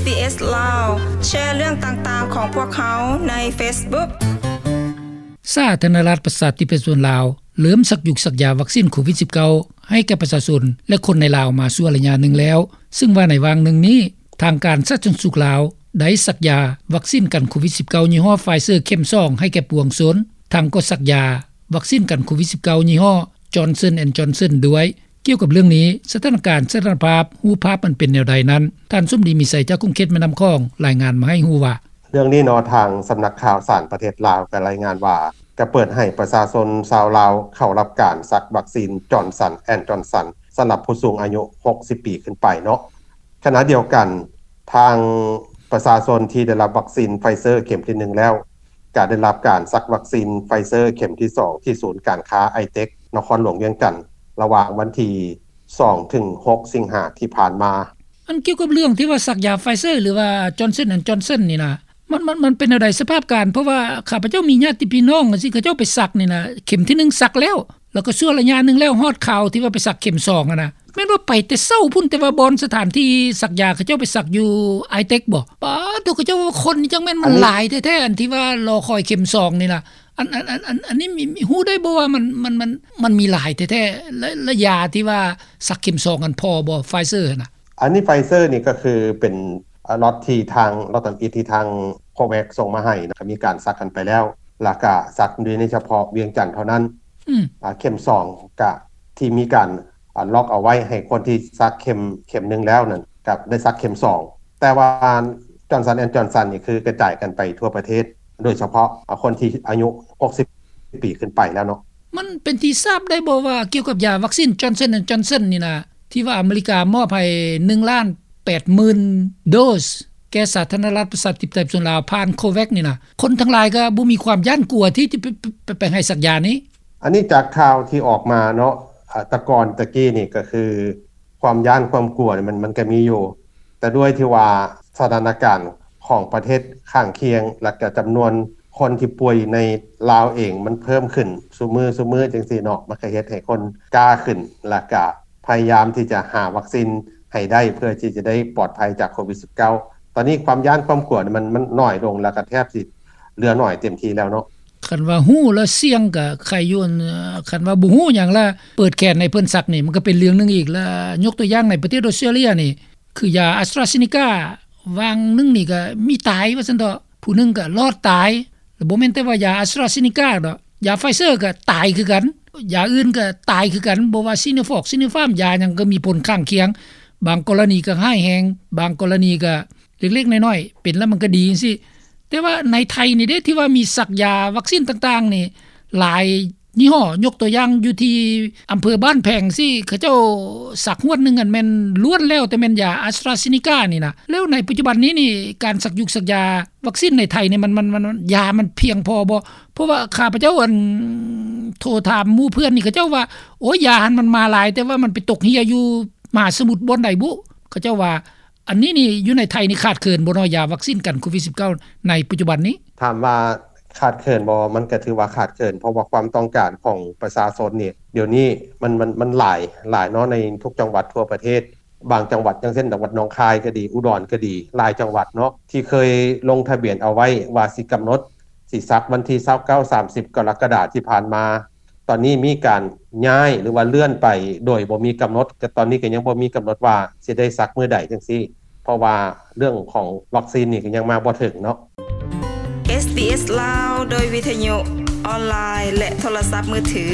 ບີເອສ ລາວ ແຊເລື່ອງຕ່າງໆຂອງພວກເຮົາໃນເຟສບຸກ. ສາທາລະນະລັດ ປະຊາທິປະໄຕ ປະຊາຊົນລາວ ເລີ່ມສັກຢູກສັກຢາວັກຊີນໂຄວິດສິບເກົ້າ ໃຫ້ແກ່ປະຊາຊົນ ແລະ ຄົນໃນລາວມາຊົ່ວໄລຍະໜຶ່ງແລ້ວ, ເຊິ່ງວ່າໃນຫວ່າງໜຶ່ງນີ້ ທາງການສາທາລະນະສຸກລາວ ໄດ້ສັກຢາວັກຊີນກັນໂຄວິດສິບເກົ້າ ຍີ່ຫໍ້ Pfizer ເຂັມສອງ ໃຫ້ແກ່ປວງຊົນ, ທັງກໍສັກຢາວັກຊີນກັນໂຄວິດສິບເກົ້າ ຍີ່ຫໍ້ Johnson and Johnson ດ້ວຍ. ກ່ຽວກັບເລື່ອງນີ້, ສະຖານະການ, ສະຖານະພາບ, ຮູບພາບມັນເປັນແນວໃດນັ້ນ, ທ່ານ ສົມດີ ມີໄຊ ຈາກຂົງເຂດແມ່ນ້ຳຂອງ ລາຍງານມາໃຫ້ຮູ້ວ່າ: ເລື່ອງນີ້ເນາະ, ທາງສຳນັກຂ່າວສານປະເທດລາວກໍລາຍງານວ່າ ກໍເປີດໃຫ້ປະຊາຊົນຊາວລາວເຂົ້າຮັບການສັກວັກຊີນ Johnson and Johnson ສຳລັບຜູ້ສູງອາຍຸຫົກສິບປີຂຶ້ນໄປເນາະ. ຂະນະດຽວກັນ, ທາງປະຊາຊົນທີ່ໄດ້ຮັບວັກຊີນ Pfizer ເຂັມທີໜຶ່ງແລ້ວ ກໍໄດ້ຮັບການສັກວັກຊີນ Pfizer ເຂັມທີສອງ ທີ່ສູນການຄ້າ ໄອເຕັກ ນະຄອນຫຼວງວຽງຈັນ ລະຫວ່າງວັນທີສອງ ເຖິງ ຫົກ ສິງຫາທີ່ຜ່ານມາ. ອັນກ່ຽວກັບເລື່ອງທີ່ວ່າສັກຢາ Pfizer ຫຼືວ່າ Johnson and Johnson ນີ້ນະ, ມັນ, ມັນ, ມັນເປັນແນວໃດສະພາບການ? ເພາະວ່າຂ້າພະເຈົ້າມີຍາດຕິພີ່ນ້ອງຈັ່ງຊີ້ ເຂົາເຈົ້າໄປສັກນີ້ນະ, ເຂັມທີໜຶ່ງສັກແລ້ວ, ແລ້ວກໍຊົ່ວໄລຍະໜຶ່ງແລ້ວ, ຮອດຄາວທີ່ວ່າໄປສັກເຂັມສອງຫັ້ນນະ. ແມ່ນວ່າໄປແຕ່ເຊົ້າພຸ້ນ, ແຕ່ວ່າບ່ອນສະຖານທີ່ສັກຢາ ເຂົາເຈົ້າໄປສັກຢູ່ໄອເຕັກບໍ? ປາດໂທ້, ເຂົາເຈົ້າວ່າຄົນນີ້ຈັ່ງແມ່ນມັນຫຼາຍແທ້ໆ, ອັນທີ່ວ່າລໍຄອຍເຂັມສອງນີ້ນະ. ອັນ, ອັນ, ອັນ, ອັນ, ອັນນີ້ມີ, ມີ, ຮູ້ໄດ້ບໍ່ວ່າມັນ, ມັນ, ມັນ, ມັນມີຫຼາຍແທ້ໆ ແລະ, ແລະ ຢາທີ່ວ່າສັກເຂັມສອງຫັ້ນພໍບໍ່ Pfizer ຫັ້ນນະ? ອັນນີ້ Pfizer ນີ້ກໍຄືເປັນ ອາ ລັອດທີ່ທາງ ລັອດທຳອິດທີ່ທາງ COVAX ສົ່ງມາໃຫ້ນະ, ກໍມີການສັກກັນໄປແລ້ວ, ແລ້ວກໍສັກຢູ່ໃນສະເພາະວຽງຈັນເທົ່ານັ້ນ. ອືມ ອາ ເຂັມສອງ ກະທີ່ມີການ ອາ ລັອກເອົາໄວ້ໃຫ້ຄົນທີ່ສັກເຂັມ, ເຂັມໜຶ່ງແລ້ວນັ້ນ ກໍໄດ້ສັກເຂັມສອງ. ແຕ່ວ່າ Johnson and Johnson ນີ້ຄືກະຈາຍກັນໄປທົ່ວປະເທດ, ໂດຍສະເພາະ ອາ ຄົນທີ່ອາຍຸຫົກສິບປີຂຶ້ນໄປແລ້ວເນາະ. ມັນເປັນທີ່ຊາບໄດ້ບໍ່ວ່າ ກ່ຽວກັບຢາວັກຊີນ Johnson and Johnson ນີ້ນະ, ທີ່ວ່າອາເມລິກາມອບໃຫ້ໜຶ່ງລ້ານແປດໝື່ນໂດສ ແກ່ສາທາລະນະລັດປະຊາທິປະໄຕປະຊາຊົນລາວ ຜ່ານ COVAX ນີ້ນະ, ຄົນທັງຫຼາຍກໍບໍ່ມີຄວາມຢ້ານກົວທີ່ຈະໄປ, ໄປ, ໄປໃຫ້ສັກຢານີ້. ອັນນີ້ຈາກຂ່າວທີ່ອອກມາເນາະ, ອາ, ແຕ່ກ່ອນຕະກີ້ນີ້ກໍຄືຄວາມຢ້ານຄວາມກົວນີ້ ມັນ, ມັນກໍມີຢູ່, ແຕ່ດ້ວຍທີ່ວ່າສະຖານະການຂອງປະເທດຂ້າງຄຽງ ແລະກະຈຳນວນຄົນທີ່ປ່ວຍໃນລາວເອງມັນເພີ່ມຂຶ້ນຊຸມື້, ຊຸມື້ຈັ່ງຊີ້ເນາະ, ມັນກໍເຮັດໃຫ້ຄົນກ້າຂຶ້ນ ແລະກະພະຍາຍາມທີ່ຈະຫາວັກຊີນໃຫ້ໄດ້ ເພື່ອທີ່ຈະໄດ້ປອດໄພຈາກໂຄວິດສິບເກົ້າ. ຕອນນີ້ຄວາມຢ້ານຄວາມກົວນີ້ມັນ, ມັນໜ້ອຍລົງ ແລະກະແທບຊິເຫຼືອໜ້ອຍເຕັມທີ່ແລ້ວເນາະ. ຄັນວ່າຮູ້ແລ້ວສ່ຽງກໍໄຄຢູ່, ຄັນວ່າບໍ່ຮູ້ຫຍັງລະເປີດແຂນໃຫ້ເພິ່ນສັກນີ້ ມັນກໍເປັນເລື່ອງໜຶ່ງອີກ. ລະຍົກຕົວຢ່າງໃນປະເທດອອສເຕຣເລັຍນີ້ ຄືຢາ AstraZeneca ຫວ່າງໜຶ່ງນີ້ກໍມີຕາຍວ່າຊັ້ນເຖາະ, ຜູ້ໜຶ່ງກໍລອດຕາຍ. ລະບໍ່ແມ່ນແຕ່ວ່າຢາ AstraZeneca ດອກ, ຢາ Pfizer ກໍຕາຍຄືກັນ, ຢາອື່ນກໍຕາຍຄືກັນ, ບໍ່ວ່າ Sinovac Sinopharm ຢາຫຍັງກໍມີຜົນຂ້າງຄຽງ, ບາງກໍລະນີກໍຮ້າຍແຮງ, ບາງກໍລະນີກໍເລັກໆນ້ອຍໆ ເປັນແລ້ວມັນກໍດີຈັ່ງຊີ້. ແຕ່ວ່າໃນໄທນີ້ເດ້ ທີ່ວ່າມີສັກຢາວັກຊີນຕ່າງໆນີ້ຫຼາຍຍີ່ຫໍ້, ຍົກຕົວຢ່າງຢູ່ທີ່ອຳເພີບ້ານແພງຊີ້ ເຂົາເຈົ້າສັກຮວດໜຶ່ງຫັ້ນແມ່ນລ້ວນແລ້ວແຕ່ແມ່ນຢາ AstraZeneca ນີ້ນະ. ແລ້ວໃນປັດຈຸບັນນີ້ນີ້ ການສັກຢູກສັກຢາວັກຊີນໃນໄທນີ້ ມັນ, ມັນ, ມັນ, ມັນ, ຢາມັນພຽງພໍບໍ່? ເພາະວ່າຂ້າພະເຈົ້າ ອັນ ໂທຖາມໝູ່ເພື່ອນນີ້ ເຂົາເຈົ້າວ່າ ໂອ້ຍ ຢາຫັ້ນມັນມາຫຼາຍ ແຕ່ວ່າມັນໄປຕົກເຮ່ຍຢູ່ມະຫາສະໝຸດບ່ອນໃດບຸ ເຂົາເຈົ້າວ່າ. ອັນນີ້ນີ້ຢູ່ໃນໄທນີ້ຂາດເຂີນບໍ່ເນາະ ຢາວັກຊີນກັນໂຄວິດສິບເກົ້າໃນປັດຈຸບັນນີ້? ຖາມວ່າຂາດເຂີນບໍ່? ມັນກໍຖືວ່າຂາດເຂີນ ເພາະວ່າຄວາມຕ້ອງການຂອງປະຊາຊົນນີ້ ດຽວນີ້ມັນ, ມັນ, ມັນຫຼາຍ, ຫຼາຍເນາະ ໃນທຸກຈັງຫວັດທົ່ວປະເທດ. ບາງຈັງຫວັດ ຢ່າງເຊັ່ນ ຈັງຫວັດໜອງຄາຍກໍດີ ອຸດອນກໍດີ ຫຼາຍຈັງຫວັດເນາະ ທີ່ເຄີຍລົງທະບຽນເອົາໄວ້ວ່າຊິກຳນົດ ຊິສັກວັນທີຊາວເກົ້າ ສາມສິບ ກໍລະກະດາທີ່ຜ່ານມາ ຕອນນີ້ມີການຍ້າຍ ຫຼືວ່າເລື່ອນໄປໂດຍບໍ່ມີກຳນົດ, ກໍຕອນນີ້ກໍຍັງບໍ່ມີກຳນົດວ່າຊິໄດ້ສັກມື້ໃດຈັ່ງຊີ້ ເພາະວ່າເລື່ອງຂອງວັກຊີນນີ້ກໍຍັງມາບໍ່ເຖິງເນາະ. ເອສບີເອສ ລາວ ໂດຍວິທະຍຸ ອອນລາຍ ແລະ ໂທລະສັບມືຖື.